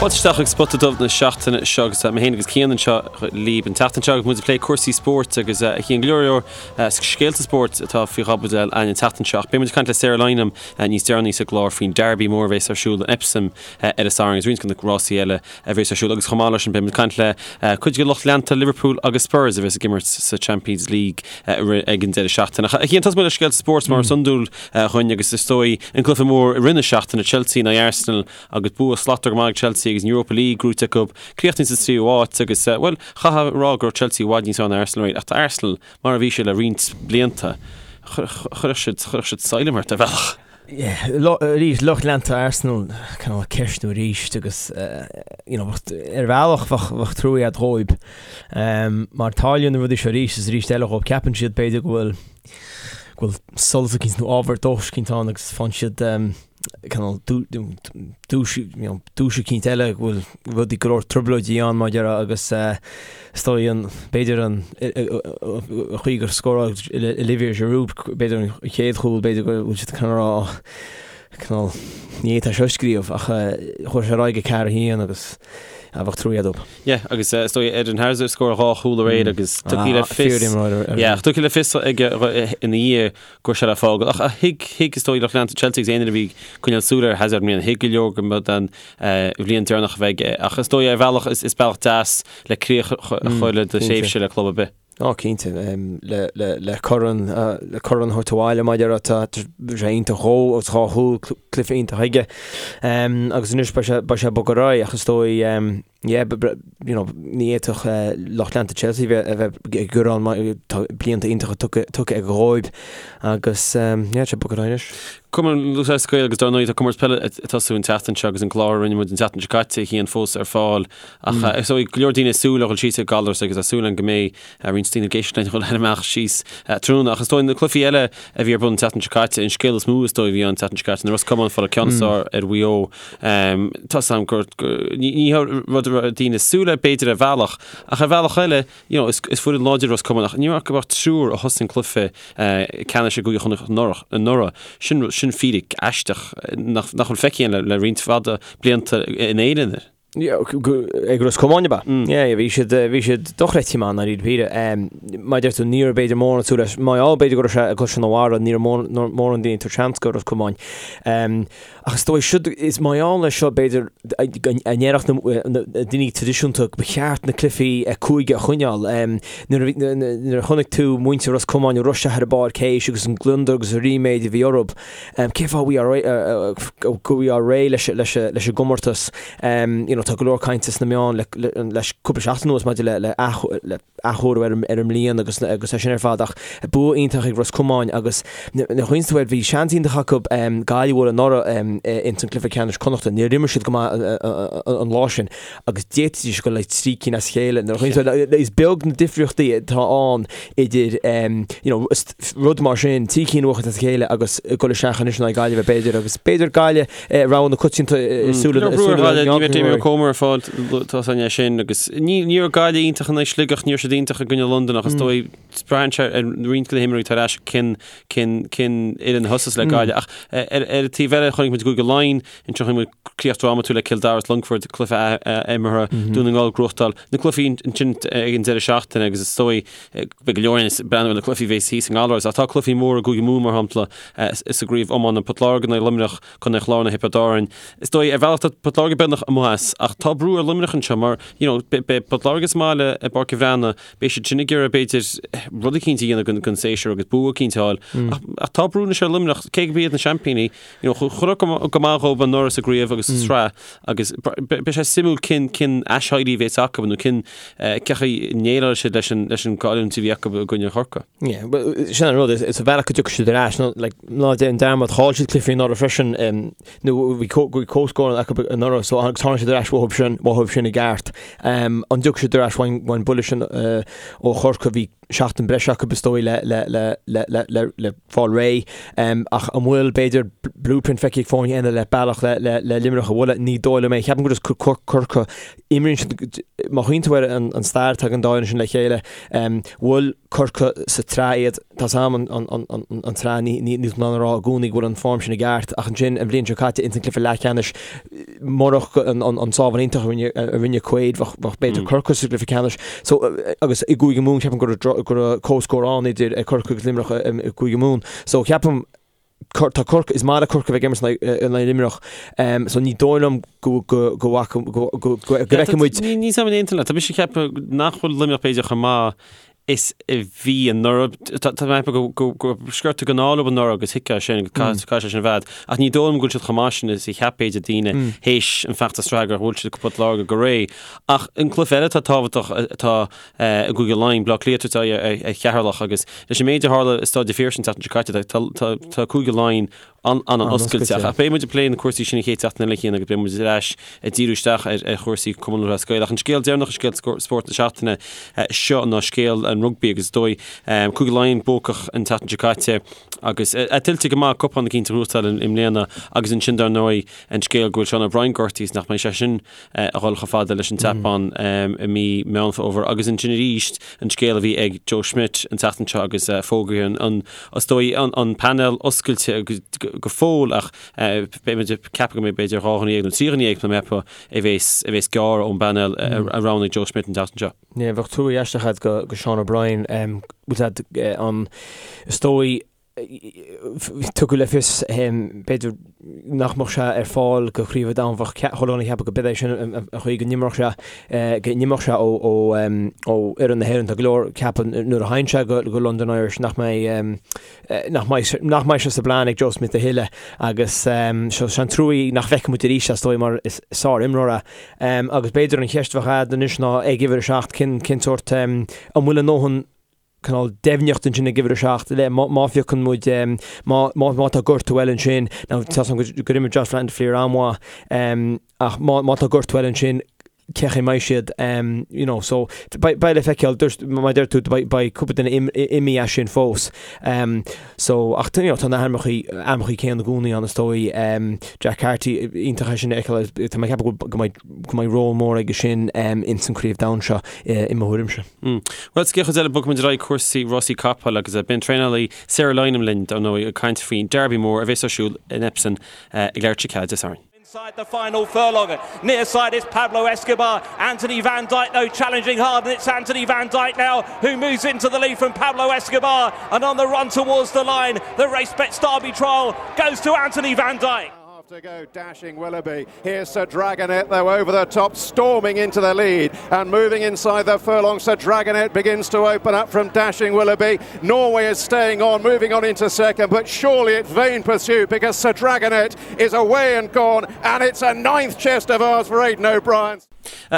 Fáilte isteach chuig Spota Dubh na seachtaine seo agus mé féin agus Cian anseo libh an tseachtain seo agus muid ag plé cúrsaí spóirt agus a Chian go leor leor scéalta spóirt atá faoi chaibidil againn an tseachtain seo ach beidh muid ag caint le Sarah Lynam níos deireanaí sa gclár faoin Derby mór a bheas ar siúl in Epsom ar an Satharn agus roinnt de na rásaí eile a bheas ar siúl agus chomh maith leis sin beidh muid ag caint le cuid de lucht leanta Liverpool agus Spurs a bheas ag imirt sa Champions League ag an deireadh seachtaine. Ach a Chian tosóidh muid le scéalta spóirt mar is iondúil dhuinn agus is dóigh an cluiche mór i rith na seachtaine Chelsea in aghaidh Arsenal Agus bua slachtmhar go maith ag Chelsea agus an Europa League gnóite acu, críochnaithe sa tríú háit agus, bhuel, chaithfeá a rá go raibh Chelsea i bhfad níos fearr ná Arsenal aréir. Ach tá Arsenal mar a bhí siad le roinnt blianta. Chuirfeadh siad, chuirfeadh siad salm ort ar bhealach. Yeah, arís, lucht leanta Arsenal, cineál ag ceistiú arís agus, you know, ar bhealach bheadh, bheadh trua agat dhóibh. Mar tarlaíonn na rudaí seo arís is arís eile dhóibh. Ceapann siad b'fhéidir go bhfuil, go bhfuil solas eicínt nó ábhar dóchais eicínt ann agus faigheann siad, cineál dúis dúis eicínt eile go bhfuil rudaí go leor trioblóidí ann mar a déarfá agus is dóigh an b'fhéidir an chaoi gur scóráil Olivier Giroud b'fhéidir an chéad chúl b'fhéidir go bhfuil siad cineál rá cineál ní fhéadfá seo a scríobh ach chuaigh sé ar aghaidh go 4-1 agus bheadh trua agat dóibh. Yeah, agus is dóigh Eden Hazard scóráil dhá chúl aréir agus tugtha le fios Yeah, tugtha le fios aige ina dhiaidh go raibh sé le fágáil. Ach thuig, thuig, is dóigh, lucht leanta Chelsea agus aon duine a bhí ag coinneáil súil ar Hazard i mbliana, thuig go leor go mba den bhliain deireanach a bheidh aige. Ach is dóigh, ar bhealach, is bealach deas le críoch a chur le do thréimhse le club ar bith. Ó, cinnte. Le, le, le corn, le corn a thabhairt abhaile, mar a déarfá, tá sé iontach dhó agus dhá chúl, cluiche iontach aige. Agus anois beidh sé, beidh sé ag bogadh ar aghaidh ach is dóigh, Yeah, you know, ní fhéadfadh lucht leanta Chelsea a bheith ag gearán mar tá blianta iontacha tugtha aige dhóibh agus yeah, tá sé ag bogadh ar aghaidh anois. Cumann Lúthchleas Gael agus dar ndóigh tá comórtas peile ag tosú an tseachtain seo agus an clár a rinne muid an tseachtain seo caite a Chian fós ar fáil ach is dóigh go leor daoine ag súil a dhul síos ag Gallarus agus tá súil againn go mbeidh roinnt daoine ag éisteacht linn ag dul amach síos tráthnóna ach is dóigh na cluichí eile a bhí ar bun an tseachtain seo caite an scéal is mó is dóigh a bhí ann an tseachtain seo caite ná Ros Comáin ag fáil an ceann is fearr ar Mhaigh Eo Tá 's agam gur ní rud a raibh daoine ag súil leis b'fhéidir ar bhealach, ach ar bhealach eile, you know, is foireann láidir Ros Comáin ach ní raibh ach triúr a thosaigh an cluiche ceannais i gCúige Chonnacht anuraidh. Sin sin fíric aisteach nach nach bhfuil feicthe againn le roinnt fada blianta in Éirinn. Ag Ros Comáin ab ea? Yeah, bhí siad bhí siad dochreidte maith i ndáiríre píre. Mar a deir tú ní raibh b'fhéidir mórán ag súil leis. Mar gheall b'fhéidir go raibh sé i gCaisleán an Bharraigh, ní raibh mórán daoine ag tabhairt seans go Ros Comáin. Ach is dóigh, siúd, is mar gheall air seo, b'fhéidir, a ndéarfadh na daoine traidisiúnta ba cheart na cluichí cúige a choinneáil. Nuair a chonaic tú muintir Ros Comáin ag rith isteach ar an bpáirc théis agus an gliondar agus an ríméad a bhí orthu, cén fáth go bhfuil réidh leis an gcomórtas? You know, tá go leor cainte sna meáin leis cúpla seachtain anuas maidir le athchóiriú ar an mbliain agus agus é sin ar fad ach bua iontach ag Ros Comáin agus nuair a chuimhníonn tú air bhí seans iontach acu Gaillimh a bhualadh anuraidh ins an cluiche ceannais Connachta. Níor imir siad go maith an lá sin agus d'fhéadfaidís dul le trí cinn as a chéile. Nuair a chuimhníonn tú air is beag na difríochtaí atá ann idir you know rud mar sin, trí cinn a bhuachaint as a chéile agus dul isteach anois in aghaidh Gaillimhe b'fhéidir agus b'fhéidir Gaillimh rogha na coitianta i súile na Ní raibh Damien Comer ar fáil tá a fhios againn é sin agus ní ní raibh Gaillimh iontach in aghaidh Sligeach, ní raibh siad iontach i gcoinne Londain ach is dóigh braitheann sé ar roinnt de na himreoirí atá ar ais cén cén cén fhoireann a thosas le Gaillimh ach ar ar an taobh eile chonaic muid i gCúige Laighean ansin chonaic muid críoch drámatúil le Cill Dara is Longfort cluiche imeartha Dún na nGall ag gnóthachtáil na cluichí ansin ag an deireadh seachtaine agus is dóigh Beidh go leor ag breathnú ar na cluichí a bheas thíos i nGallaras ach tá cluichí móra i gCúige Mumhan mar shampla sa gcraobh iomána, Port Láirge in aghaidh Luimneach, Contae an Chláir in aghaidh Thiobraid Árann. Is dóigh ar bhealach tá Port Láirge beagnach amuigh as ach tá brú ar Luimneach anseo mar you know beidh Port Láirge sa mbaile i bPáirc an Bhreathnaigh, beidh siad sin ag iarraidh b'fhéidir rud eicínt a dhéanamh don séasúr agus bua eicínt a fháil ach tá brú anois ar Luimneach cé gurb iad na seaimpíní you know chuaigh go maith dhóibh anuraidh sa gcraobh agus sa tsraith Agus beidh sé suimiúil cén cén aiséirí a bheas acu nó cén cén chaoi a ndéileálfaidh siad leis an leis an gcailliúint a bhí acu i gcoinne Chorcaí. Yeah, well, sin an rud, is ar bhealach go dtiocfaidh siad ar ais, nó like, ná déan dearmad, chaill siad cluichí anuraidh freisin, um, nó bhí bhí comhscór acu anuraidh, so agus tháinig siad ar ais uathu sin, uathu sin i gceart. Um, an dtiocfaidh siad ar ais ón mbuille sin uh, ó Chorcaigh, bhí seachtain breise acu is dóigh le le le le le le le fáil réidh. Ach an bhfuil, b'fhéidir, blueprint feicthe ag foirne eile le bealach le le le Luimneach a bhualadh? Ní dóigh liom é. Ceapaim gur just Corcaigh, imríonn siad, má chuimhníonn tú ar an an stair atá ag an dá fhoireann sin le chéile, bhuail Corcaigh sa tsraith iad, tá 's a'm an an an an an tsraith, ní ní níl tú in ann a rá i gcónaí go bhfuil an form sin i gceart, ach ansin an bhliain seo caite ins an cluiche leathcheannais, murach an an an. sábháil iontach a rinne a rinne Quaid bheadh bheadh b'fhéidir Corcaigh sa gcluiche ceannais. So agus i gCúige Mumhan ceapaim go raibh go raibh comhscór ann idir Corcaigh agus Luimneach i gCúige Mumhan. So ceapaim tá Corcaigh is maith le Corcaigh a bheith ag imirt in aghaidh Luimneach. So ní dóigh liom go go go bhfaca go go go bhfeicfidh muid Ní ní aontaím leat. Tá mise ag ceapadh nach bhfuil Luimneach b'fhéidir chomh maith is a bhí anuraidh. Tá mé ag ceapadh go raibh sciorta den ádh leo anuraidh agus thuigfeá sin, caithfidh sé sin a bheith. Ach ní dóigh liom go bhfuil siad chomh maith sin is a cheap b'fhéidir daoine théis an feachtas sraithe gur bhuail siad Port Láirge go réidh. Ach an cluiche eile atá tábhachtach atá i gCúige Laighean, Baile Átha Cliath ag tabhairt aghaidh ar Cheatharlach agus leis an méid a tharla i Staid an Phiarsaigh an tseachtain seo caite tá Cúige Laighean an-oscailte. Ach beidh muid ag plé na cúrsaí sin an chéad seachtain eile, Cian, agus beidh muid ar ais ag díriú isteach ar chúrsaí Cumann Lúthchleas Gael. Ach an scéal deireanach i scéalta spóirt na seachtaine seo ná scéal an rugbaí agus is dóigh Cúige Laighean buacach an tseachtain seo caite agus é tuillte go maith cupán eicínt a ghnóthachtáil i mbliana agus ansin dar ndóigh an scéal go bhfuil Sean O'Brien gortaithe is nach mbeidh sé sin a dhul chomh fada leis an tSeapáin i mí Meán Fómhair agus ansin arís an scéal a bhí ag Joe Schmidt an tseachtain seo agus fógraithe an, is dóigh, an painéal oscailte go fóill ach beidh muid ag ceapadh go mbeidh b'fhéidir 12 dhuine nó 13 dhuine tá mé ag ceapadh a bheas a bheas gearrtha ón bpainéal a roghnaigh Joe Schmidt an tseachtain seo. Yeah, bheadh trua aisteach agat go Sean O'Brien, bhfuil a fhios agat an, is dóigh, Tugadh le fios, b'fhéidir, nach mbeadh sé ar fáil go Craobh an Domhain. Bheadh chuile dhuine ag ceapadh go b'é sin an chaoi go n-imeodh sé, go n-imeodh sé ó fhoireann na hÉireann. Tá go leor ag ceapadh nuair a théann sé go London Irish nach mbeidh, nach mbeidh, nach mbeidh sé sa bplean ag Joe Schmidt a thuilleadh agus so is an-trua é nach bhfeicfidh muid arís é, is dóigh, mar is sár-imreoir é. Agus b'fhéidir an cheist a bheadh agat anois ná ag uimhir a 7, cén, cén sórt, an bhfuil a ndóthain cineál deimhneacht ansin ag uimhir a 7 le má phiocann muid má má tá gortú eile ansin now tá a fhios agam gur imir Josh van der Flier an-mhaith ach má má tá gortú eile ansin cén chaoi a mbeidh siad you know so beidh beidh le feiceáil dúirt mar a deir tú beidh beidh cúpla duine imithe as sin fós so ach you know tá na hainmneacha ainmneacha céanna i gcónaí ann is dóigh Jack Carty iontach é sin a fheiceáil tá mé ag ceapadh go mbeidh go mbeidh ról mór aige sin ins an Craobh Domhain seo i mo thuairimse. Bhuel, sa gcéad chuid eile, bogfaidh muid ar aghaidh cúrsaí rásaí capall agus beidh an traenálaí Sarah Lynam linn, dar ndóigh, ag caint faoin Derby mór a bheas ar siúl in Epsom ag leathuair tar éis a 4 Dé Sathairn. Inside the final furlong, near side is Pablo Escobar, Anthony Van Dyck though challenging hard and it's Anthony Van Dyck now who moves into the lead from Pablo Escobar and on the run towards the line, the race bets Derby trial goes to Anthony Van Dyck. To go dashing Willoughby. Here's Sir Dragonet though over the top, storming into the lead and moving inside the furlong. Sir Dragonet begins to open up from Dashing Willoughby. Norway is staying on, moving on into second, but surely it's vain pursuit because Sir Dragonet is away and gone, and it's a ninth chest of ours for Aidan O'Brien.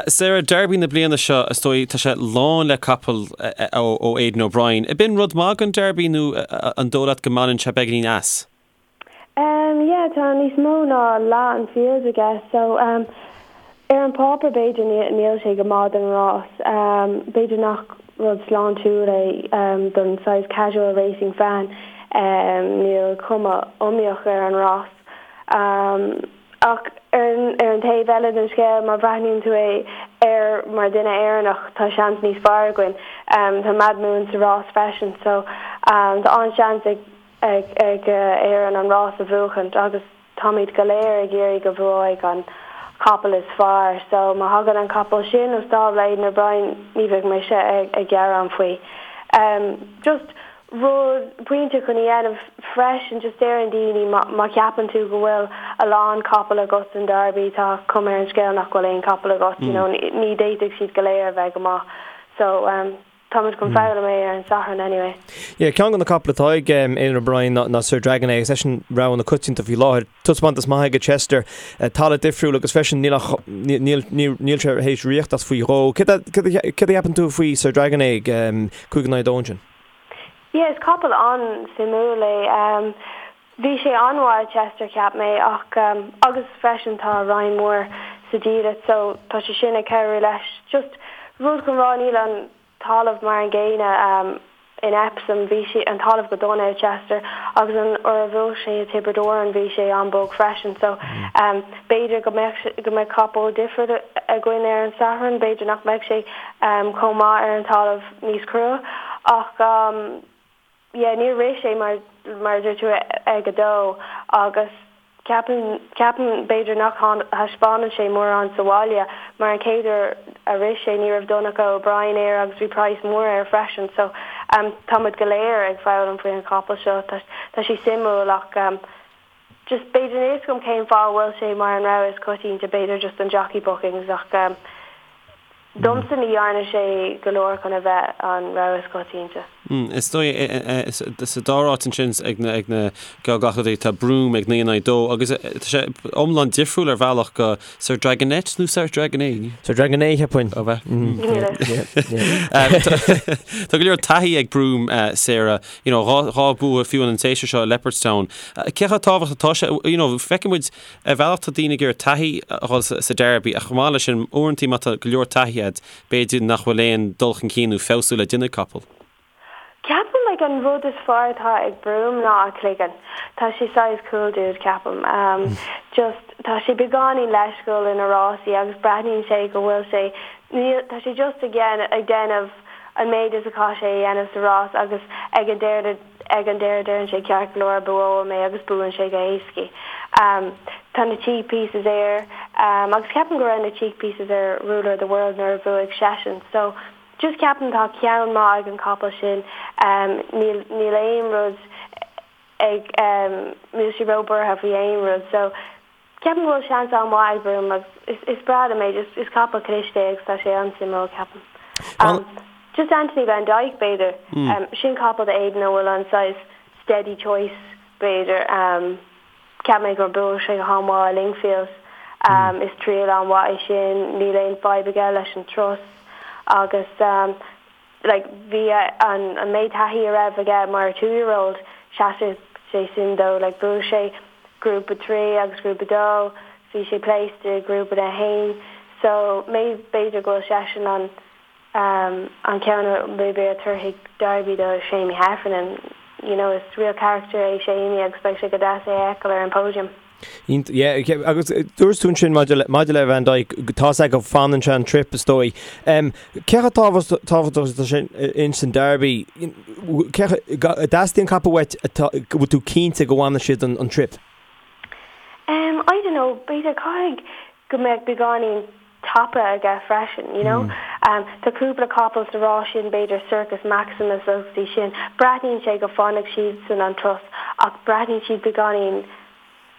Sarah, Derby na bliana seo, is dóigh, tá sé lán le capaill ó Aidan O'Brien. Ab in rud maith don Derby nó an dóigh leat go mbaineann sé beagáinín as? Em, yeah, tá níos mó ná leath an field aige, so, em, ar an pháipéar b'fhéidir níl, níl sé go maith don rás. Em, b'fhéidir nach rud sláintiúil é, em, don saghas casual racing fan, em, níl cuma iomaíoch ar an rás. Em, ach ar an, ar an taobh eile den scéal, má bhreathnaíonn tú é air mar duine Éireannach, tá seans níos fearr againn. Em, tá Madhmoon sa rás freisin, so, em, tá an-seans ag, ag Éirinn an rás a bhuachaint agus táimid go léir ag iarraidh go bhuafaidh an capall is fearr so má thagann an capall sin ó stábla Aidan O'Brien ní bheidh mise ag gearán faoi. Just rud, pointe chun a dhéanamh freisin just deireann daoine má cheapann tú go bhfuil a lán capall agat san Derby tá cuma ar an scéal nach bhfuil aon capall agat you know ní d'fhéadfadh siad go léir a bheith go maith so Táimid chun foghlaim é ar an Satharn anyway. Yeah, ceann de na capaill atá ag Aidan O'Brien ná Sir Dragonet agus eisean rogha na coitianta faoi láthair. Taispeántas maith aige Chester, talamh difriúil agus freisin níl ach níl níl sé théis ritheacht as faoi dhó. Céard a céard a céard a cheapann tú faoi Sir Dragonet ag 5 in aghaidh 2 ansin? Yeah, is capall an-suimiúil é. Bhí sé an-mhaith i Chester cheap mé ach agus freisin tá Ryan Moore sa diallait so tá sé sin ag cabhrú leis. Just rud chun rá níl an talamh mar an gcéanna in Epsom, bhí sé an talamh go dona i Chester agus an uair a bhuaigh sé i Tiobraid Árann bhí sé an-bog freisin so b'fhéidir go mbeadh go mbeadh capall difriúil againn ar an Satharn, b'fhéidir nach mbeadh sé chomh maith ar an talamh níos crua ach yeah níor rith sé mar mar a dúirt tú ag a dó agus. Ceapaim, ceapaim b'fhéidir nach thaispeánann sé mórán sa bhaile mar an chéad uair a rith sé ní raibh Donnacha O'Brien air agus bhí praghas mór air freisin so tá muid go léir ag foghlaim faoi an chapall seo. Tá, tá sé suimiúil ach just b'fhéidir níl fhios agam cén fáth a bhfuil sé mar an rogha is coitianta, b'fhéidir just an jockey bookings ach Domsa ní dhearna sé go leor chun a bheith an rogha is coitianta. Is dóigh sa dara háit ansin ag na geallghlacadóirí tá Broome ag 9 in aghaidh 2 agus tá sé iomlán difriúil ar bhealach go Sir Dragonet nó Sir Dragonet? Sir Dragonet cheapfainn. Ó bheith. Tá go leor taithí ag Broome, Sarah, you know, dhá bua fiú an séasúr seo i Leopardstown. Cé chomh tábhachtach atá sé, you know, feiceann muid Ar bhealach tá daoine ag iarraidh taithí a dhul sa Derby ach chomh maith leis sin, uaireanta má tá go leor taithí agat, b'fhéidir nach bhfuil aon dul chun cinn nó feabhsú le déanamh ag capall. Ceapaim like an rud is fearr atá ag Broome ná a chloigeann. Tá sé saghas cool dude ceapaim. Just tá sé beagáinín leisciúil ina rásaí agus breathnaíonn sé go bhfuil sé níl tá sé just ag ag déanamh an méid is a chaith sé a dhéanamh sa rás agus ag an deireadh Ag an deireadh deireann sé ceart go leor buafaidh mé agus buann sé go héascaí. Tá na cheek pieces air agus ceapaim go raibh na cheek pieces ar Ruler of the World nuair a bhuaigh seisean so just ceapaim tá ceann maith ag an capall sin níl níl aon rud ag níl sé ró buartha faoi aon rud so Ceapaim go bhfuil seans an-mhaith ag Broome agus is is breá liom é, just is capall cliste é agus tá sé an-suimiúil ceapaim. Um, just Anthony Van Dyck b'fhéidir, um, sin capall do Aidan a bhfuil an saghas steady choice b'fhéidir, um, cheap mé gur bhuaigh sé go han-mhaith i Lingfield, um, is triail an-mhaith é sin, níl aon fadhb aige leis an turas agus um, like bhí an an méid taithí a raibh aige mar two year old sheasaigh sé sin dó like bhuaigh sé grúpa 3 agus grúpa 2 bhí sé placed i grúpa 1 so maybe b'fhéidir go bhfuil seisean an um an ceann a maybe a tabharfaidh Derby do Seamie Heffernan you know is real character é Seamie agus beidh sé go deas é a fheiceáil ar an podium. Yeah, agus dúirt tú ansin maidir le, maidir le Van Dyke, tá sé go fanann sé an trip is dóigh. Um, cé chomh tábhachtach atá sin ins an Derby, cé dteastaíonn capall uait atá, go bhfuil tú cinnte go bhfanann siad an, an trip? Um, I don't know, b'fhéidir caithfidh go mbeadh beagáinín tapa aige freisin, you know. Um, tá cúpla capall sa rás sin, b'fhéidir Circus Maximus agus iad sin, breathnaíonn sé go bhfanfaidh siadsan an turas ach breathnaíonn siad beagáinín,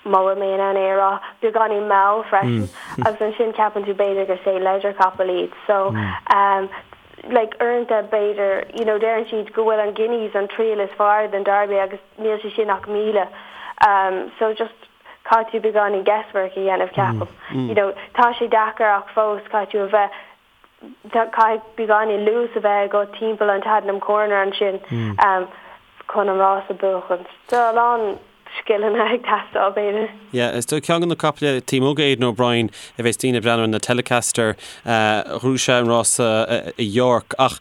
má bhfuil mé in ann é a rá, beagáinín mall freisin agus ansin ceapann tú b'fhéidir gur St Leger capall iad. So, um, like uaireanta b'fhéidir, you know, deireann siad go bhfuil an Guineas an triail is fearr den Derby agus níl sé sin ach 1,000. Um, so just caithfidh tú beagáinín guesswork a dhéanamh ceapaim. You know, tá sé deacair ach fós caithfidh tú a bheith, caithfidh beagáinín luas a bheith agat timpeall an Tattenham Corner ansin chun an rás a bhuachan. Tá a lán scileanna ag teastáil b'fhéidir. Yeah, is dóigh ceann de na caiple taobh amuigh d'Aidan O'Brien a bheas daoine ag breathnú ar na Telecaster, ghnóthaigh sé an rása i York ach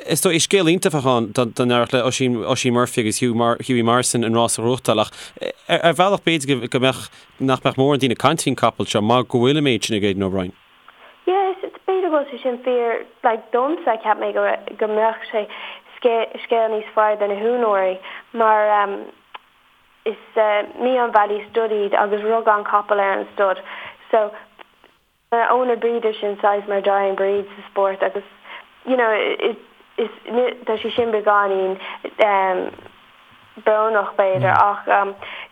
is dóigh is scéal iontach a bheadh ann dá n-éireodh le Oisín, Oisín Murphy agus Hugh, Hughie Morrison an rás a ghnóthachtáil ach ar bhealach b'fhéidir go mbeadh, nach mbeadh mórán daoine ag caint faoin capall seo mar go bhfuil an méid sin ag Aidan O'Brien. Yeah, is b'fhéidir go bhfuil sé sin fíor, like domsa cheap mé go go mbeadh sé scéal níos fearr do na húinéirí mar um, is Meon Valley Stud iad agus rug an capall ar an stud so owner breeder sin saghas mar dying breed sa spórt agus you know is is tá sé sin beagáinín brónach b'fhéidir ach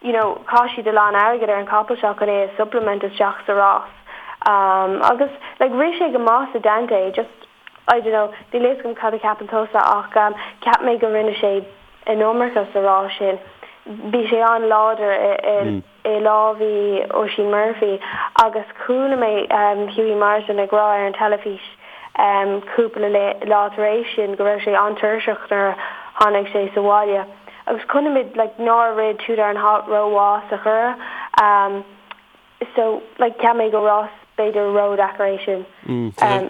you know chaith siad a lán airgid ar an capall seo chun é a supplement isteach sa rás agus like rith sé go maith sa Dante just I don't know níl a fhios agam cad a cheapann tusa ach cheap mé go rinne sé an iomarca sa rás sin bhí sé an-láidir i i lámha Oisín Murphy agus chuala mé Hughie Morrison ag rá ar an teilifís cúpla lá tar éis sin go raibh sé an-tuirseach nuair a tháinig sé sa bhaile agus chonaic muid like nár rith Too Darn Hot rómhaith sa Churrach so like cheap mé go rás. b'fhéidir ródheacair é sin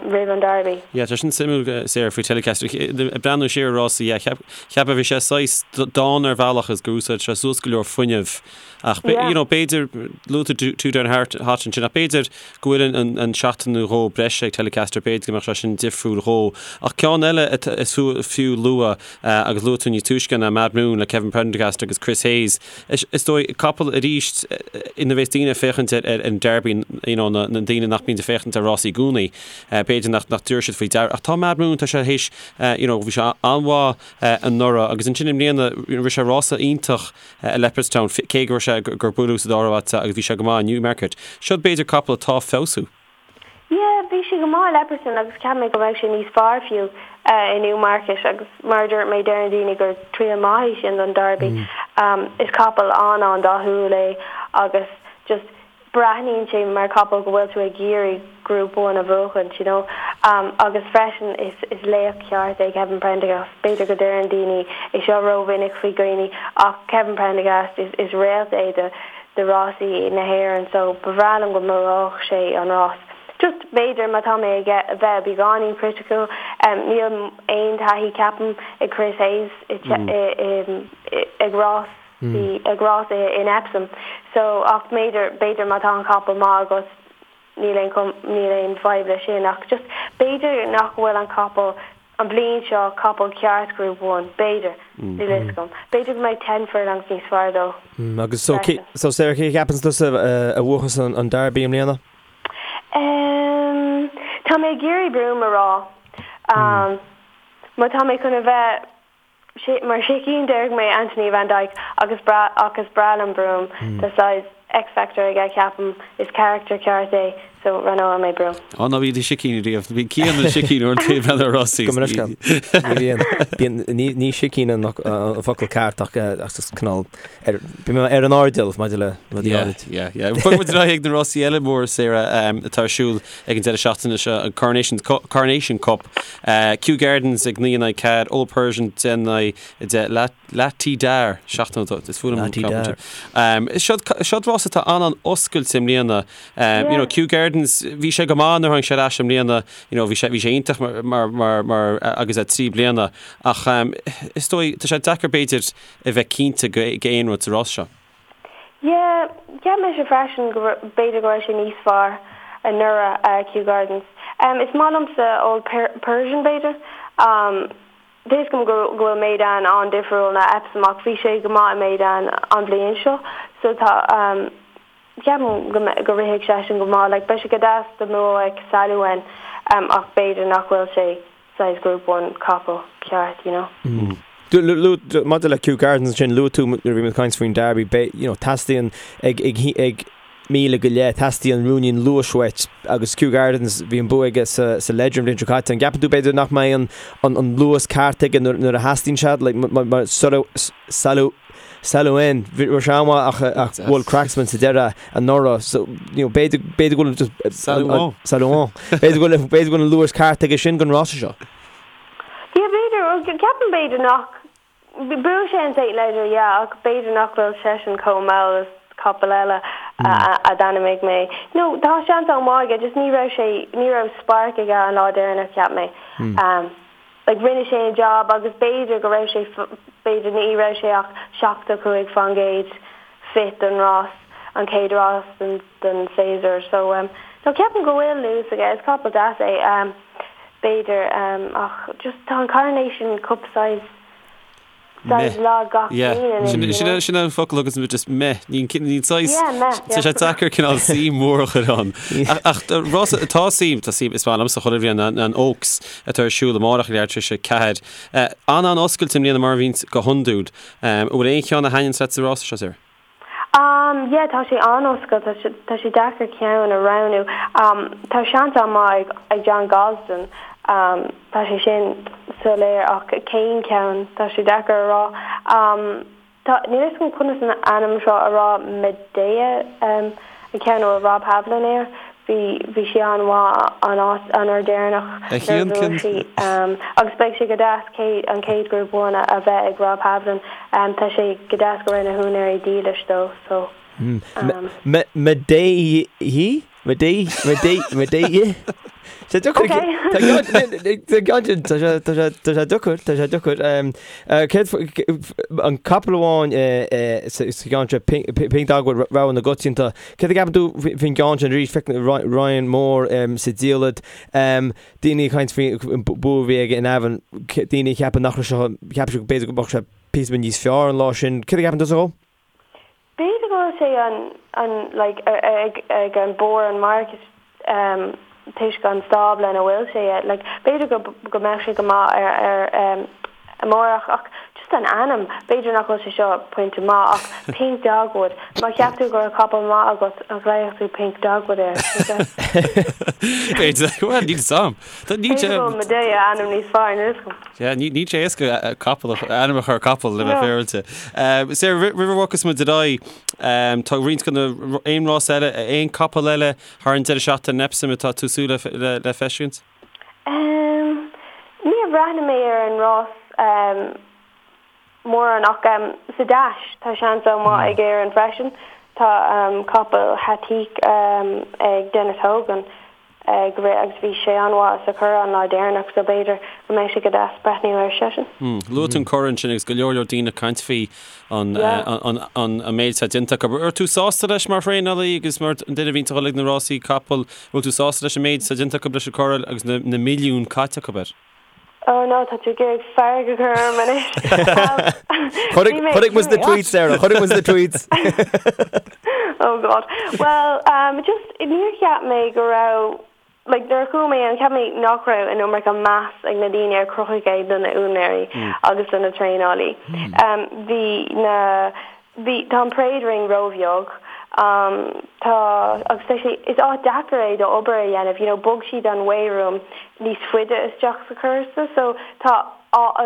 roimh an Derby. Yeah, tá sin suimiúil, Sarah, faoi Telecaster. Ag breathnú siar ar rásaí, yeah, cheapfá bhí sé saghas dána ar bhealach is gur úsáid sé suas go leor fuinnimh ach, you know, b'fhéidir, luaigh tú Two Down Hot ansin ach b'fhéidir go bhfuil an seachtain nó dhó breise ag Telecaster, b'fhéidir go mbeadh sé sin difriúil dhó. Ach ceann eile is fiú lua agus luaigh tú níos túisce ná Madhmoon le Kevin Prendergast agus Chris Hayes. Is dóigh, capall arís ina bheas daoine ag féachaint ar an Derby, you know, na daoine nach mbíonn ag féachaint ar rásaí i gcónaí, b'fhéidir nach dtabharfaidh siad faoi deara. Ach tá Madhmoon, tá sé théis, you know, bhí sé an-mhaith anuraidh agus ansin i mbliana, rith sé rása iontach i Leopardstown, cé go raibh sé, gur buaileadh sa dara háit agus bhí sé go maith i Newmarket. Seo b'fhéidir capall atá ag feabhsú. Yeah, bhí sé go maith i Leopardstown agus cheap mé go mbeadh sé níos fearr fiú i Newmarket agus mar a dúirt mé deireann daoine gur triail maith é sin don Derby. Is capall an-an-dathúil é agus just breathnaíonn sé mar capall go bhfuil tú ag iarraidh Group One a bhuachaint, you know. Agus freisin is is laoch ceart é Kevin Prendergast. B'fhéidir go deireann daoine é seo rómhinic faoi dhaoine ach Kevin Prendergast is is réalt é do do rásaí na hÉireann so ba bhreá liom go mbuafadh sé an rás. Just b'fhéidir má tá mé ag bheith beagáinín criticiúil, níl aon taithí ceapaim ag Chris Hayes ag rásaí ag rás in Epsom so ach b'fhéidir b'fhéidir má tá an capall maith agat níl aon níl aon fadhb leis sin ach just b'fhéidir nach bhfuil an capall an bhliain seo capall ceart Group One, b'fhéidir, níl a fhios agam. B'fhéidir go mbeidh ten furlongs níos fearr dó Agus so, freisin. so Sarah, cé a cheapann tusa a bhuachas an Derby i mbliana? Ehm, tá mé ag iarraidh Broome a rá. Má tá mé chun a bheith Mar sicín déarfaidh mé Anthony Van Dyck agus ach is breá liom Broome. Tá saghas X-factor aige ceapaim, is character ceart é so roghnóidh mé Broome. Á ná bí i do shicín ariamh. Bíonn Cian ina shicín uaireanta ag breathnú ar rásaí. Gabh mo leithscéal. Ní bhíonn. Bíonn, ní, ní sicín an focal ceart ach ach just cineál ar, bíonn mé ar an airdeall maidir le rudaí Yeah, áirid. yeah, yeah. Bogfaidh muid ar aghaidh ag na rásaí eile móra Sarah atá ar siúl ag an deireadh seachtaine seo, an Coronation, Coronation Cup. Kew Gardens ag 9 in aghaidh 4, Old Persian 10 in aghaidh 10, Lah Ti Dar, 7 is fuath liom an ceann sin. Seo rás atá an-an-oscailte i mbliana. You know, Kew Gardens, bhí sé go maith nuair a tháinig sé ar ais i mbliana, you know, bhí sé, bhí sé iontach mar, mar, mar, mar agus é 3 bliana. Ach is dóigh, tá sé deacair b'fhéidir a bheith cinnte go, go aon rud sa rás seo. Yeah, cheap mise freisin go b'fhéidir go raibh sé níos fearr anuraidh, Kew Gardens. Is maith liomsa Old Persian b'fhéidir. Tá fhios agam go bhfuil Meydan an-difriúil ná Epsom ach bhí sé go maith i Meydan an bhliain seo so tá ceapaim go go rithfidh seisean go maith. Like beidh sé go deas dá mbuafadh Saluan ach b'fhéidir nach bhfuil sé saghas Group One capall ceart, you know. Maidir le Kew Gardens ansin, luaigh tú nuair a bhí muid ag caint faoin Derby, you know, teastaíonn ag, ag, ag míle go leith, teastaíonn ruainnín luais uait agus Kew Gardens, bhí an bua aige sa, sa Leger an bhliain seo caite. An gceapann tú b'fhéidir nach mbeidh an, an, an luas ceart aige nuair, nuair a theastaíonn sé, like, mar, mar, Salu, Saluan, bhí sé an-mhaith ach, ach bhuail Cracksman sa deireadh anuraidh, so, you know, b'fhéidir, b'fhéidir go bhfuil just, Saluan. Saluan. B'fhéidir go bhfuil, b'fhéidir go bhfuil an luas ceart aige sin don rása seo. Yeah, b'fhéidir, well, ceapaim b'fhéidir nach, bhuaigh sé an St Leger, yeah, ach b'fhéidir nach bhfuil seisean chomh mall is capall eile a d'ainmnigh mé. No, tá seans an-mhaith aige, just ní raibh sé, ní raibh spark aige an lá deireanach, cheap mé. Like rinne sé an job agus b'fhéidir go raibh sé, b'fhéidir ní raibh sé ach 75% fit don rás, an chéad rás den den séasúr. So um no ceapaim go bhfuil luas aige, is capall deas é um b'fhéidir um ach just tá an Coronation Cup saghas Saghas lag gach bliain anois, you know. Sin an focal agus just meh. Ní saghas, Yeah, meh, tá sé deacair cineál suim mhór a chur ann. Ach rás atá suim, tá suim, is maith liomsa chuile bhliain an Oaks atá ar siúl amárach ag leathuair tar éis a 4. An-an-oscailte i mbliana mar a bhíonns go hiondúil. An bhfuil aon cheann a thaitníonns leat sa rása seo, Sarah? Um, yeah, tá sé an-oscailte, tá sé, tá sé deacair ceann a roghnú. Um, tá seans an-mhaith ag, ag John Gosden, um, tá sé sin soiléir ach cén ceann, tá sé deacair a rá. Um, tá, níl a fhios agam conas an ainm seo a rá, Medea, um, an ceann a bhfuil Rob Havlin air, bhí, bhí sí an-mhaith an áit, an uair deireanach A nuair a Chian, bhuaigh cén. sí. Um, agus beidh sé go deas céad, an chéad Group One a, a bheith ag Rob Havlin. Tá sé go deas go raibh na húinéirí dílis dó so. Medea? Madí, Madí, Madí, yeah. Tá deacair. Tá sé deacair, tá sé deacair. Céard an capall amháin sa gceann seo, Pink Dogwood, rogha na gcoitianta. Céard a cheapann tú faoin gceann sin arís? Feicim Ryan Moore sa diallait. Daoine ag caint faoin bua a bhí aige in Navan, daoine a cheapann nach raibh sé, cheap siad b'fhéidir go mbeadh sé píosa beag níos fearr an lá sin. Céard a cheapann tusa dhó? B'fhéidir go bhfuil sé an, an, like, ag, ag an barr an market um toisc an stábla ina bhfuil sé, like, b'fhéidir go, go mbeadh sé go maith ar, ar um amárach ach just an ainm, b'fhéidir nach bhfuil sé seo pointe maith ach Pink Dogwood, má cheap tú go raibh capall maith agat an ghlaofadh tú Pink Dogwood air? B'fhéidir, well níl 'fhios a'm. Níl sé. B'fhéidir go bhfuil Madea ainm níos fearr, níl 'fhios agam. Yeah, níl sé éasca capall, ainm a chur ar capall le bheith féaráilte. Sarah, roimh a bhogfas muid ar aghaidh, tá roinnt de na, aon rás eile, aon capall eile thar an deireadh seachtaine in Epsom atá tú ag súil le feiscint? Níor bhreathnaigh mé ar an rás mórán ach sa Dash tá seans an-mhaith ag Éirinn freisin. Tá capall Hatik ag Denis Hogan ag rith agus bhí sé an-mhaith sa Churrach an lá deireanach so b'fhéidir go mbeidh sé go deas breathnú air seisean. Luaigh tú an Currach ansin agus go leor leor daoine ag caint faoi an méid atá déanta acu. An raibh tú sásta leis mar thraenálaí agus mar an duine a bhíonn ag dul ag na rásaí capall, bhfuil tú sásta leis an méid atá déanta acu leis an Currach agus na milliúin caite acu air? Oh no, tá tú ag iarraidh fearg a chur orm anois. Chonaic muid na tweets, Sarah, chonaic muid na tweets. Oh God. Well, um, just, níor cheap mé go raibh, like, nuair a chuaigh mé ann, cheap mé nach raibh an iomarca meas ag na daoine ar chruthaigh é do na úinéirí agus do na traenálaí. Um, bhí na, Bhí, tá an parade ring róbheag. Tá, agus tá sé, is áit deacair é do obair a dhéanamh, you know, bhog siad an weigh room níos faide isteach sa chúrsa so tá,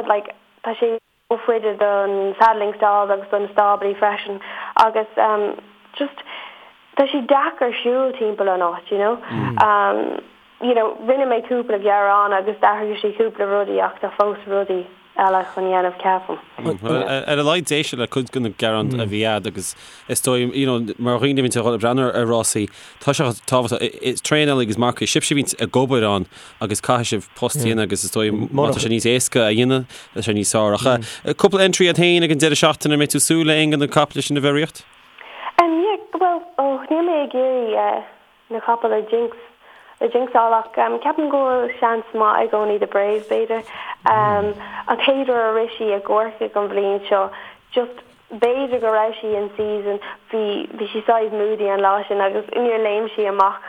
like, tá sé rófhaide don saddling stalls agus do na stáblaí freisin agus just tá sé deacair siúl timpeall an áit, you know. You know, rinne mé cúpla gearán agus d'athraigh siad cúpla rudaí ach tá fós rudaí eile chun dhéanamh ceapaim. Ar a laghad d'éisteadh le cuid de na gearáin a bhí a'd agus is dóigh, you know, mar dhaoine a bhíonn ag dul ag breathnú ar rásaí, tá sé tábhachtach, is traenálaí agus marcaigh, sibhse a bhíonn ag obair ann agus caithfidh sibh post a dhéanamh agus is dóigh má tá sé níos éasca a dhéanamh, tá sé níos fearr. Ach cúpla entry a'd féin ag an deireadh seachtaine, an mbeidh tú ag súil le aon de na caiple sin a bheith ag ritheacht? Yeah, bhuel, oh, níl mé ag iarraidh na capaill a jinx, a jinxáil ach ceapaim go bhfuil seans maith ag Only the Brave b'fhéidir. An chéad uair a rith sí i gCorcaigh an bhliain seo just b'fhéidir go raibh sí in season, bhí bhí sí saghas moody an lá sin agus níor léim sí amach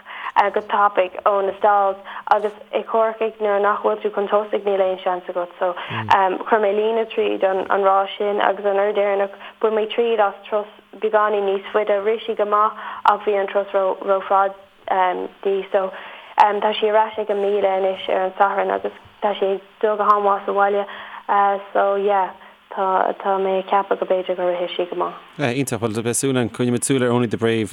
go tapaidh ó na stalls agus i gCorcaigh nuair nach bhfuil tú chun tosaigh níl aon seans agat so chuir mé líne tríd an an rás sin agus an uair deireanach bhain mé triail as turas beagáinín níos faide. Rith sí go maith ach bhí an turas ró-fhada di so tá sí ar ais ag an 1000 anois ar an Satharn agus tá sí ag dul go han-mhaith sa bhaile so yeah tá tá mé ag ceapadh go b'fhéidir go rithfidh sí go maith. Yeah, iontach. Bhuel, beidh súil againn, coinneoidh muid súil ar Only the Brave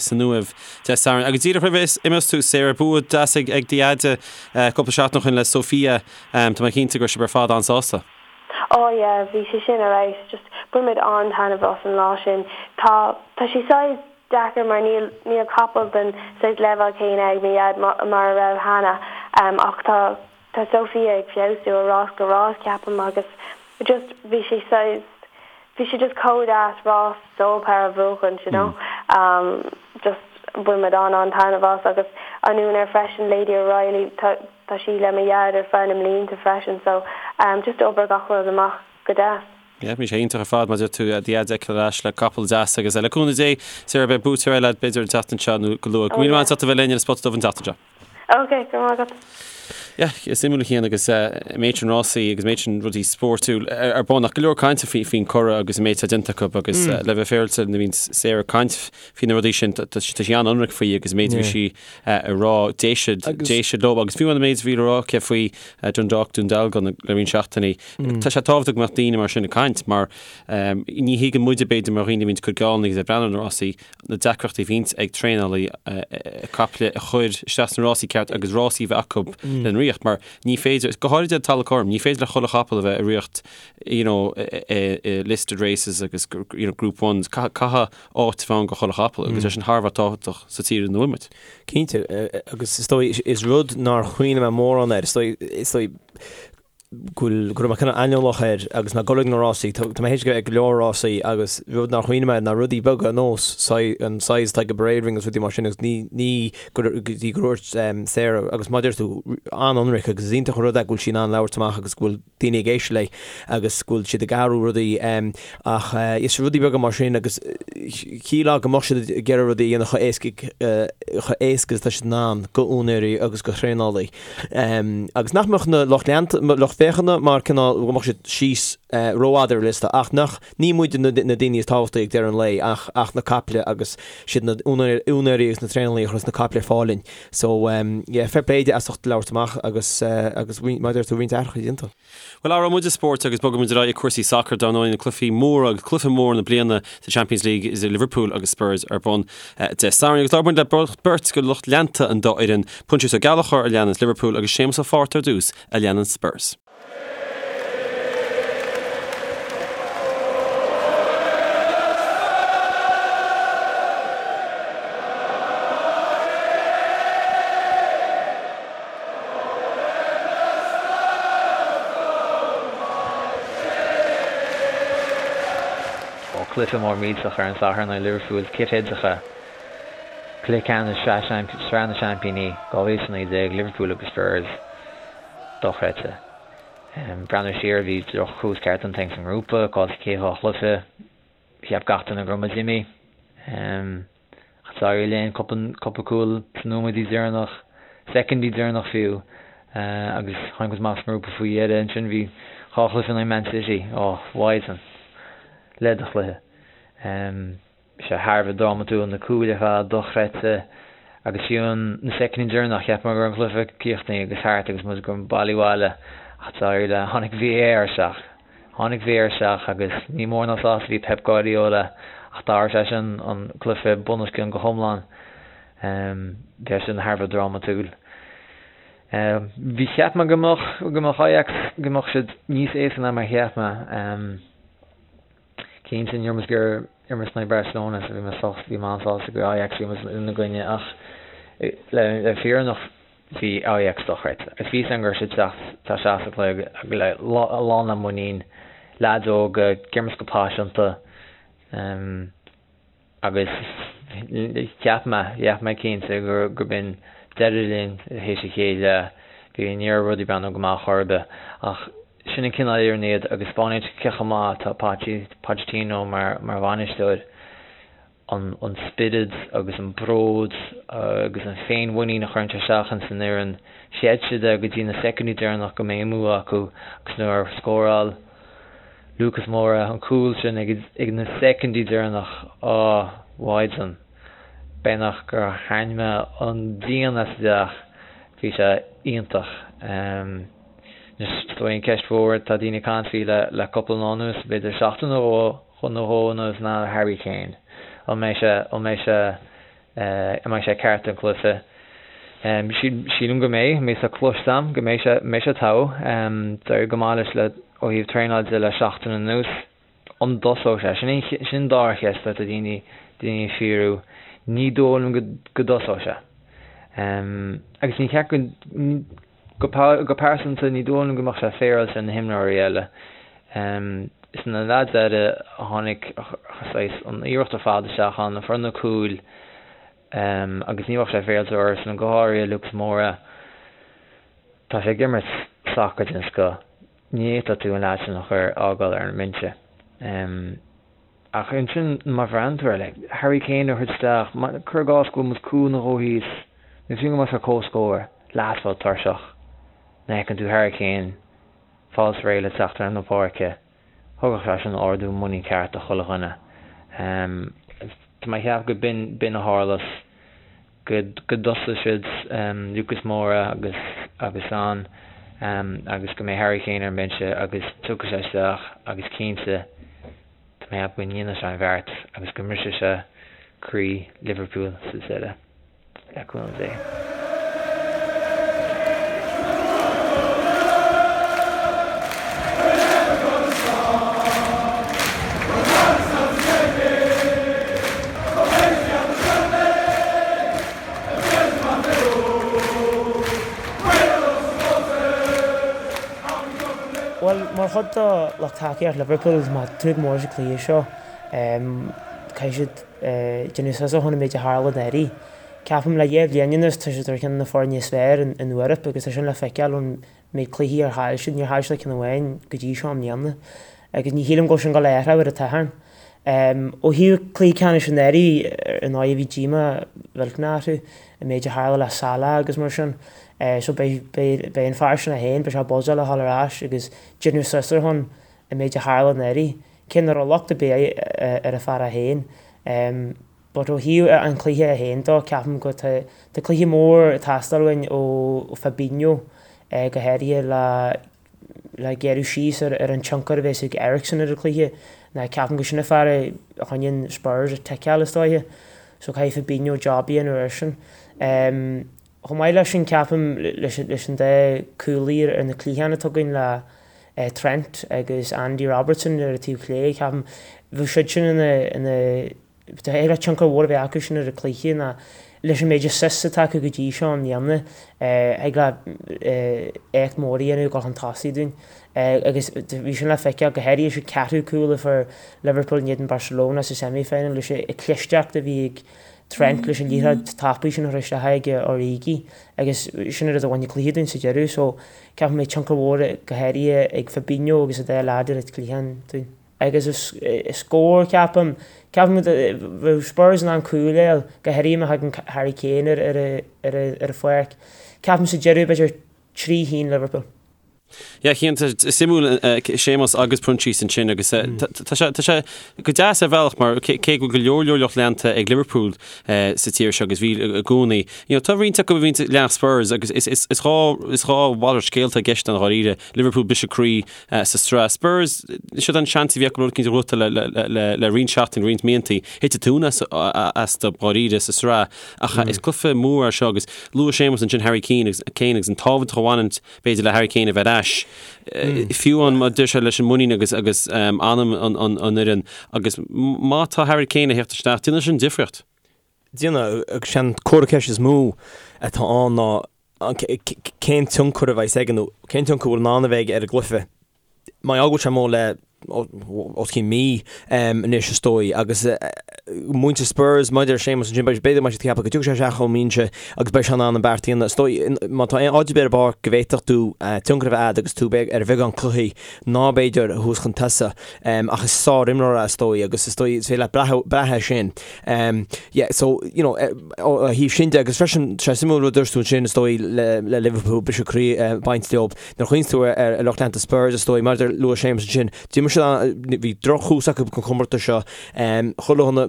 san Uaimh Dé Sathairn. Agus díreach roimh a imeos tú, Sarah, bua deas ag do dheaide cúpla seachtain ó shin le Sophia. Tá mé cinnte go raibh sibh ar fad an-sásta. Oh yeah, bhí sé sin ar fheabhas, just bhain muid an-taitneamh as an lá sin. Tá, tá sé saghas deacair mar níl, níl capall den saghas leibhéal céanna ag mo dhaid mar a raibh cheana ach tá, tá Sophia ag feabhsú ó rás go rás ceapaim agus just bhí sé saghas, bhí sé just chomh deas rás Sole Power a bhuachan, you know. Just bhain muid an-an-taitneamh as agus an úinéir freisin, Lady O'Reilly, tá, Tá sí le mo dhaid ar feadh na mblianta freisin so just d'oibrigh gach rud amach go deas. Yeah, bhí sé iontach ar fad mar a deir tú do dhaid a fheiceáil ar ais le capall deas agus le cúnamh Dé, Sarah, beidh buaiteoir eile agat b'fhéidir an tseachtain seo nó go luath. Go raibh míle maith agat as ucht a bheith linn ar an Spota Dubh an tseachtain seo. Ok, go raibh maith agat. Yeah, is suimiúil a Chian agus an méid sin rásaí agus an méid sin rudaí spórtúil ar bun ach go leor cainte faoin Currach agus an méid atá déanta acu agus le bheith féaráilte nuair a bhíonn Sarah ag caint faoi na rudaí sin tá sí an-ionraic faoi agus an méid a bhí sí a rá, d'éist siad leo agus fiú an méid a bhí le rá aici faoi Dundalk, Dún Dealgan le roinnt seachtainí. Tá sé tábhachtach go mbeadh daoine mar sin ag caint mar ní thuigeann muide b'fhéidir mar dhaoine a bhíonns ag cur geall agus ag breathnú ar na rásaí na deacrachtaí a bhíonns ag traenálaí caiple a chur isteach sna rásaí ceart agus rásaí a bheith acu lena rith. riocht mar ní féidir, go háirid ar talamh cothrom, ní féidir le chuile chapall a bheith i riocht you know i listed races agus you know group ones, caithfidh áit a bheith ann do chuile chapall agus é sin thar a bheith tábhachtach sa tír ina bhfuil muid. Cinnte, agus is dóigh, is rud nár chuimhnigh mé mórán air, is dóigh, is dóigh go bhfuil, go raibh mé cineál aineolach air agus mé ag dul ag na rásaí, tá mé théis ag go leor rásaí agus rud nár chuimhnigh mé air ná rudaí beaga ar nós an size atá ag an parade ring agus rudaí mar sin agus ní, ní go dtí gur dhúirt Sarah agus mar a deir tú, an-ionraic agus is iontach an rud é go bhfuil sí in ann labhairt amach agus go bhfuil daoine ag éisteacht léi agus go bhfuil siad ag athrú rudaí ach is rudaí beaga mar sin agus shílfeá go mbeadh siad ag iarraidh rudaí a dhéanamh chomh éasca chomh éasca is atá siad in ann go úinéirí agus go thraenálaí agus nach mbeadh na lucht leanta lucht féachana mar cineál go mbeadh siad síos rófhada ar liosta ach nach ní muid na daoine is tábhachtaí ag deireadh an lae ach ach na caiple agus siad na úinéirí agus na traenálaí a chuireann na caiple ar fáil linn. So yeah, fair play di as ucht labhairt amach agus agus mar a deir tú roinnt athruithe déanta. Bhuel, athróidh muid spórt agus bogfaidh muid ar aghaidh ag cúrsaí sacair dar ndóigh, na cluichí móra agus cluiche mór na bliana sa Champions League idir Liverpool agus Spurs ar bun Dé Sathairn. Agus labhair muid le beirt de lucht leanta an dá fhoireann, Proinsias Ó Gallchóir a leananns Liverpool agus Séamus Ó Fátharta ar dtús a leananns Spurs. Ó cluiche mór millteach ar an Satharn in aghaidh Liverpool, cithfheidreacha, Cluiche Ceannais Sraith na Seaimpíní 2019, Liverpool agus Spurs. Dochreidte. Breathnú siar, bhí drochthús ceart déanta againn sa ngrúpa, caillte chéad dhá chluiche. Cheap gach duine go raibh muid imithe. Ach d'éirigh linn cúpla cúl sna nóiméidí deireanach, soicindí deireanach fiú, agus tháinig muid amach as an ngrúpa faoi dheireadh. Ansin bhí dhá chluiche in aghaidh Man City. Ó, mhaighdean. Leid do chluiche. Bhí sé thar a bheith drámatúil, na cúil ar fad dochreidte agus fiú na soicindí deireanach, cheap mé go raibh an cluiche críochnaithe agus thart agus muid ag goil bailí abhaile ach d'éirigh le, tháinig VAR isteach. Tháinig VAR isteach agus ní mór ná sásta a bhí Pep Guardiola ach d'athraigh sé sin an cluiche bunoscionn go hiomlán. Bhí sé sin thar a bheith drámatúil. Bhí, cheap mé go mbeadh, go mbeadh Ajax, go mbeadh siad níos éasca ná mar a cheap mé. Cinnte, ní raibh muid ag iarraidh imirt in aghaidh Barcelona so bhí mé sásta, bhí mé an-sásta gur Ajax a bhí muid ina gcoinne ach le le fírinne bhí Ajax dochreidte. Agus bhí a fhios agam go raibh siad ag teacht isteach sa chluiche le lán le muinín, leaids óga, ag imirt go paiseanta. Agus cheap mé, cheap mé cinnte gur b'in deireadh linn théis an chéad leath. Bhí, ní raibh rudaí ag breathnú go maith chor ar bith. Ach sin an cineál fhoireann iad agus spáineann sé cé chomh maith atá Pochettino mar mar bhainisteoir. An an spiorad agus an bród agus an féinmhuinín a chuireann sé isteach ins an fhoireann. Chreid siad é go dtí na soicindí deireanach go mbeidh an bua acu agus nuair a scóráil Lucas Moura, an cúl sin ag na soicindí deireanach, á, mhaighdean, beagnach gur tharraing mé an díon as an dteach, bhí sé iontach. Anois, is dóigh an ceist mhór atá daoine ag caint faoi le cúpla lá anuas, b'fhéidir seachtain nó dhó anuas ná Harry Kane. An mbeidh sé, an mbeidh sé An mbeidh sé ceart don chluiche? Sílim go mbeidh. Mé sa cloiste agam go mbeidh sé mbeidh sé togha. D'éirigh go maith leis le ó thaobh traenáil de le seachtain anuas. An dtosóidh sé? Sin sin an dara cheist atá daoine daoine ag fiafraí. Ní dóigh liom go go dtosóidh sé. Agus ní cheart go Go pearsanta, ní dóigh liom go mbeadh sé féaráilte ar na himreoirí eile. Is na leaids eile a tháinig saghas an iarracht ar fad isteach ann, a fuair na cúil agus ní bheadh sé féaráilte orthusan, go háirithe Lucas Moura. Tá sé ag imirt sacar den scoth. Ní fhéadfadh tú an leaid sin a chur, fhágáil ar an mbinse. Ach ansin, má bhreathnaíonn tú air, like, Harry Kane a thabhairt isteach, cuir i gcás go bhfuil muid cúl nó dhó thíos, nó fiú go mbeadh sé comhscór, leaid atá tuirseach, nuair a fheiceann tú Harry Kane fáil réidh le teacht ar na páirce, thugadh sé sin ardú muinín ceart do chuile dhuine. Tá mé ag ceapadh go b'in, b'in a tharlós. go dtosóidh siad Lucas Moura agus agus Son agus go mbeidh Harry Kane ar an mbinse agus tiocfaidh sé isteach agus cinnte tá mé ag ceapadh go ndéanfaidh sé an bheart agus go mbrisfidh sé croí Liverpool sa deireadh, le cúnamh Dé. Bhuel, mar chuid de lucht tacaíocht Liverpool, tá mé ag tnúth go mór leis an cluiche seo. Caithfidh siad déanamh suas ó shoin an méid a tharla anuraidh. Ceapaim le dhá bhliain anuas tá siad ar cheann de na foirne is fearr in Eoraip agus tá sin le feiceáil ón méid cluichí ar chaill siad. Níor chaill siad ach ceann amháin go dtí seo i mbliana agus ní shílim go bhfuil sin ag dul a athrú ar an Satharn. Ó thaobh cluiche ceannais anuraidh, ar ndóigh bhí díomá mhillteanach orthu an méid a tharla le Salah agus mar sin. So beidh beidh an fear sin é féin, beidh sé buzzáil a dhul ar ais agus déanamh suas ar shon an méid a tharla anuraidh. Cé nach raibh locht ar bith ar an fear é féin. But ó thaobh an chluiche é féin dó, ceapaim go tá tá cluiche mór ag teastáil uainn ó Fabinho, go háirithe le le gearradh síos ar ar an tionchar a bheas ag Eriksen ar an chluiche. Ná ceapaim go sin an fear a choinníonn Spurs ag ticeáil is dóiche. So caithfidh Fabinho job a dhéanamh air sin. Chomh maith leis sin ceapaim leis leis an dá cúlaí ar na cliatháin atá againn le Trent agus Andy Robertson ar an taobh chlé, ceapaim bheadh siad sin ina ina Thig le tionchar mhór a bheith acu sin ar an cluiche ná leis an méid assists atá acu go dtí seo i mbliana, thig le éacht mór a dhéanamh ag dul chun tosaigh dúinn. Agus bhí sin le feiceáil go háirithe sa ceathrú cúl a fuair Liverpool in éadan Barcelona sa semi-final leis an clisteacht a bhí ag Trent leis an liathróid tapaidh sin a chur isteach ag Origi agus sin an rud a bhain an cluiche dúinn sa deireadh. So ceapaim go mbeidh tionchar mhór go háirithe ag Fabinho agus an dá leaid ar an cliathán dúinn. Agus is scór, ceapaim. Ceapaim go bheadh Spurs in ann cúl a fháil, go háirithe má thagann Harry Kane ar an pháirc. Ceapaim sa deireadh b'fhéidir 3-1 Liverpool. Yeah, cinnte, suimiúil Séamus agus Proinsias ansin agus tá sé tá sé go deas ar bhealach mar cé go bhfuil go leor leor lucht leanta ag Liverpool sa tír seo agus bhí i gcónaí. You know, tá roinnt acu a bhíonn ag leanacht Spurs agus is is is dhá is dhá mhalairt scéalta i gceist ann dháiríre. Liverpool briseadh croí sa tsraith. Spurs, siod an seans a bhí acu rud éicint a ghnóthachtáil le roinnt seachtainí, roinnt míontaí. Thit an tóin astu dháiríre sa tsraith. Ach is cluiche mór é seo agus luaigh Séamus ansin Harry Kane agus Kane agus an tábhacht a bhaineann b'fhéidir le Harry Kane a bheith ar ais. Fiú amháin má deir sé leis an muinín agus agus anam an fhoireann agus má tá Harry Kane ag theacht isteach, déanfaidh sin difríocht. Déanfaidh, agus sé an comhartha ceiste is mó atá ann ná cén tionchar a bheas aige nó cén tionchar a bhfuil in ann a bheith aige ar an gcluiche. Mar gheall go bhfuil sé amuigh le os cionn mí anois is dóigh agus muintir Spurs maidir le Séamus ansin b'fhéidir go mbeidh siad ag ceapadh go dtiocfaidh sé isteach ón mbinse agus beidh sé in ann an beart a dhéanamh. Is dóigh má tá aon áit ar bith ar an bpáirc go bhféadfadh tú tionchar a bheith agat agus tú ar bheagán cluichí ná b'fhéidir thuas chun tosaigh ach is sár-imreoir é is dóigh agus is dóigh is féidir leat brath air sin. Yeah so you know ó thaobh sin de agus freisin sé suimiúil rud a dúirt tú ansin is dóigh le le Liverpool briseadh croí ag baint leo nuair a chuimhníonn tú ar lucht leanta Spurs is dóigh mar a luaigh Séamus ansin d'imir siad bhí drochthús acu don chomórtas seo chuile dhuine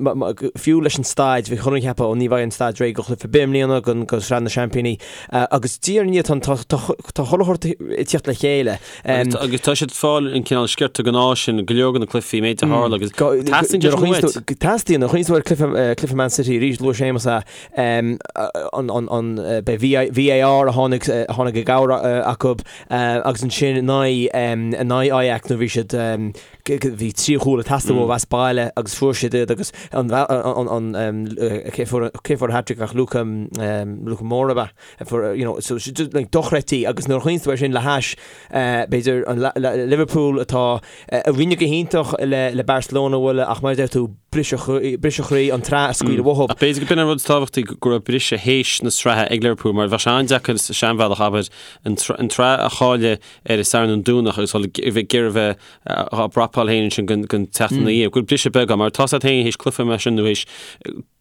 fiú leis an staid bhí chuile dhuine ag ceapadh ó ní bheidh an staid réidh do chluiche ar bith i mbliana don do Shraith na Seaimpíní agus diaidh ar ndiaidh tá tá tá chuile shórt ag tíocht le chéile. Agus tá siad ag fáil an cineál sciorta gnáis sin go leor de na cluichí méid a tharla agus teastaíonn sé sin uait. Teastaíonn, nuair a chuimhníonn tú ar cluiche Man City arís, luaigh Séamus é, an VAR a tháinig a tháinig i gcabhair acu agus ansin in aghaidh in aghaidh Ajax nuair bhí siad bhí trí chúl ag teastáil uathu as baile agus fuair siad iad agus an cé fuair cé fuair an hat-trick ach Luka Luka Moura ab ea? You know, so just like dochreidte agus nuair a chuimhníonn tú air sin le hais b'fhéidir an Liverpool atá a rinne go hiontach le le Barcelona a bhualadh ach mar a deir tú briseadh briseadh chroí an tsraith a scaoileadh uathu. Ach b'fhéidir go b'in an rud is tábhachtaí go raibh briseadh théis na sraithe ag Liverpool mar bheadh sé an-deacair sa seanbhealach abair an tsraith a chailleadh ar an Satharn an Domhnach agus dul ag iarraidh a bheith á bprapáil féin ansin don tseachtain ina dhiaidh. Go raibh briseadh beag ann mar tá a fhios agat féin théis cluiche mar sin nó théis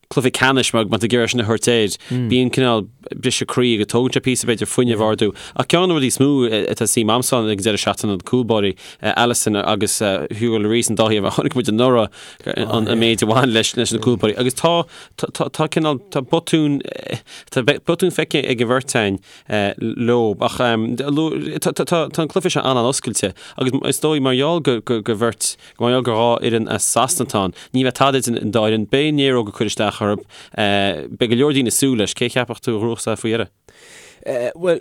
cluiche ceannais mar má tá ag iarraidh sin a thabhairt air, bíonn cineál briseadh croí agus tógann sé píosa b'fhéidir fuinneamh a ardú. Ach ceann de na rudaí is mó atá suim a'msa ann ag an deireadh seachtaine na cúlbáirí, Alisson agus Hugo Lloris an dá thaobh a chonaic muid anuraidh an méid a bhain leis leis na cúlbáirí. Agus tá tá tá cineál tá botún tá botún feicthe ag an bheirt againn leo ach tá tá tá an cluiche seo an-an-oscailte agus is dóigh mar gheall go go go bheirt Mar gheall gur dhá fhoireann as Sasana atá ann, ní bheidh tada idir an dá fhoireann. Beidh an néaróg ag cur isteach orthu. Beidh go leor daoine ag súil leis. Cé a cheapfadh tú a ghnóthós é faoi dheireadh? Bhuel,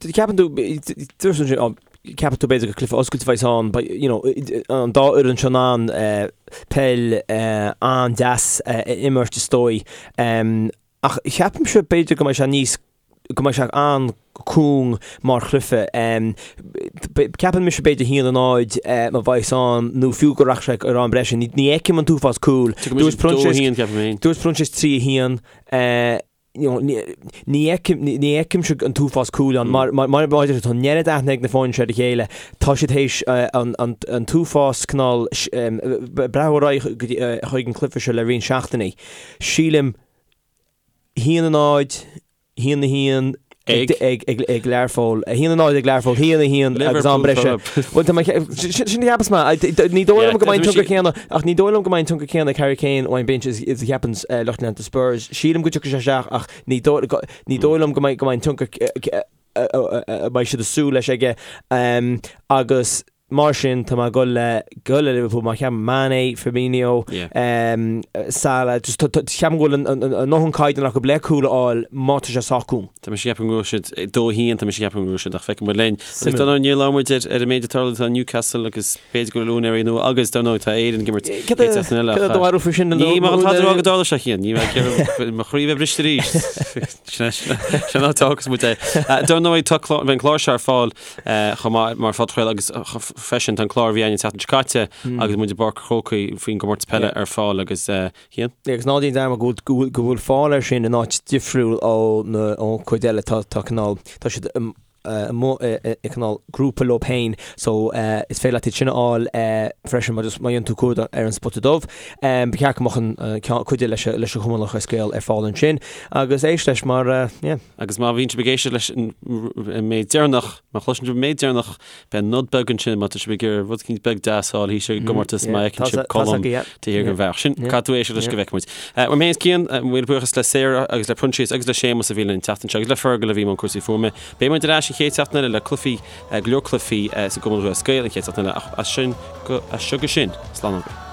ceapann tú, dúirt tú ansin, ceapann tú b'fhéidir gur cluiche oscailte a bheas ann, but, you know, an dá fhoireann seo in ann peil an-deas a imirt is dóigh. Ach ceapaimse b'fhéidir go mbeidh sé níos go mbeidh sé an-cúng mar chluiche. Ceapann mise b'fhéidir 1-0 má bheas ann nó fiú go rachaidh sé ar am breise. Ní fheicim an t-uafás cúl. Dúirt Proinsias Dúirt Proinsias 3-1. Ní fheicimse an t-uafás cúl ann. Mar mar a tá an oiread aithne ag na foirne seo ar a chéile. Tá siad théis an t-uafás cineál breathnú ar aghaidh chuig an cluiche seo le roinnt seachtainí. Sílim 1-0, 1-1 ag Learpholl, 1-0 ag Learpholl, 1-1 agus am breise. Bhuel, tá mé, sin a cheapas mé. Ní dóigh liom go mbeidh an tionchar céanna, ach ní dóigh liom go mbeidh an tionchar céanna ag Harry Kane ón bench is a cheapann lucht leanta Spurs. Sílim go dtiocfaidh sé isteach ach ní dóigh liom go mbeidh an tionchar a mbeidh siad ag súil leis aige agus Mar sin, tá mé ag dul le dul le Liverpool mar cheapaim Mane, Firmino, Salah, just ceapaim go bhfuil a ndóthain caighdeán acu le cúl a fháil má tá sé sách cúng. Tá mise ag ceapadh go bhfuil siad 2-1, tá mise ag ceapadh go bhfuil siad ach feicfidh muid linn. Agus dar ndóigh níor labhair muid ar an méid atá tarlaithe tá Newcastle agus b'fhéidir go bhfuil úinéirí nua agus dar ndóigh tá Éirinn ag imirt chéad seachtain eile. Cad é do bharúil faoi sin? Ní mar atá rá go dtarlóidh sé Cian, ní bheidh mo chroí bheith briste arís. Sin an áit a fhágfas muid é. Dar ndóigh tá an clár seo ar fáil chomh maith mar phodchraoladh agus freisin tá an clár a bhí againn an tseachtain seo caite agus muid i bPáirc an Chrócaigh faoin gcomórtas peile ar fáil agus Cian? Agus ná déan dearmad go bhfuil go bhfuil fáil air sin in áit difriúil ó na ón chuid eile tá tá cineál tá siad amuigh i cineál grúpa leo féin so is féidir leat iad sin a fháil freisin má just má dhéanann tú cuardach ar an Spota Dubh. Ba cheart go mbeadh an ceann cuid leis leis an Chumann Lúthchleas Gael ar fáil ansin agus éist leis mar yeah. Agus má bhíonn sibh ag éisteacht leis an méid deireanach, má chloiseann sibh an méid deireanach, beidh nod beag ansin má tá sibh ag iarraidh rud eicínt beag deas a fháil thíos ar an gcomórtas má fheiceann sibh Colm taobh thiar den bhealach. Sin, caithfidh tú éisteacht leis go bhfeicfidh muid. Uaim féin is Cian, míle buíochas le Sarah agus le Proinsias agus le Séamus a bhí linn an tseachtain seo agus le Fergal a bhí i mbun cúrsaí fuaime. Beidh muid ar ais an chéad seachtain eile le cluichí, go leor cluichí sa gCumann Lúthchleas Gael an chéad seachtain eile ach as sin go, as seo go sin, slán agaibh.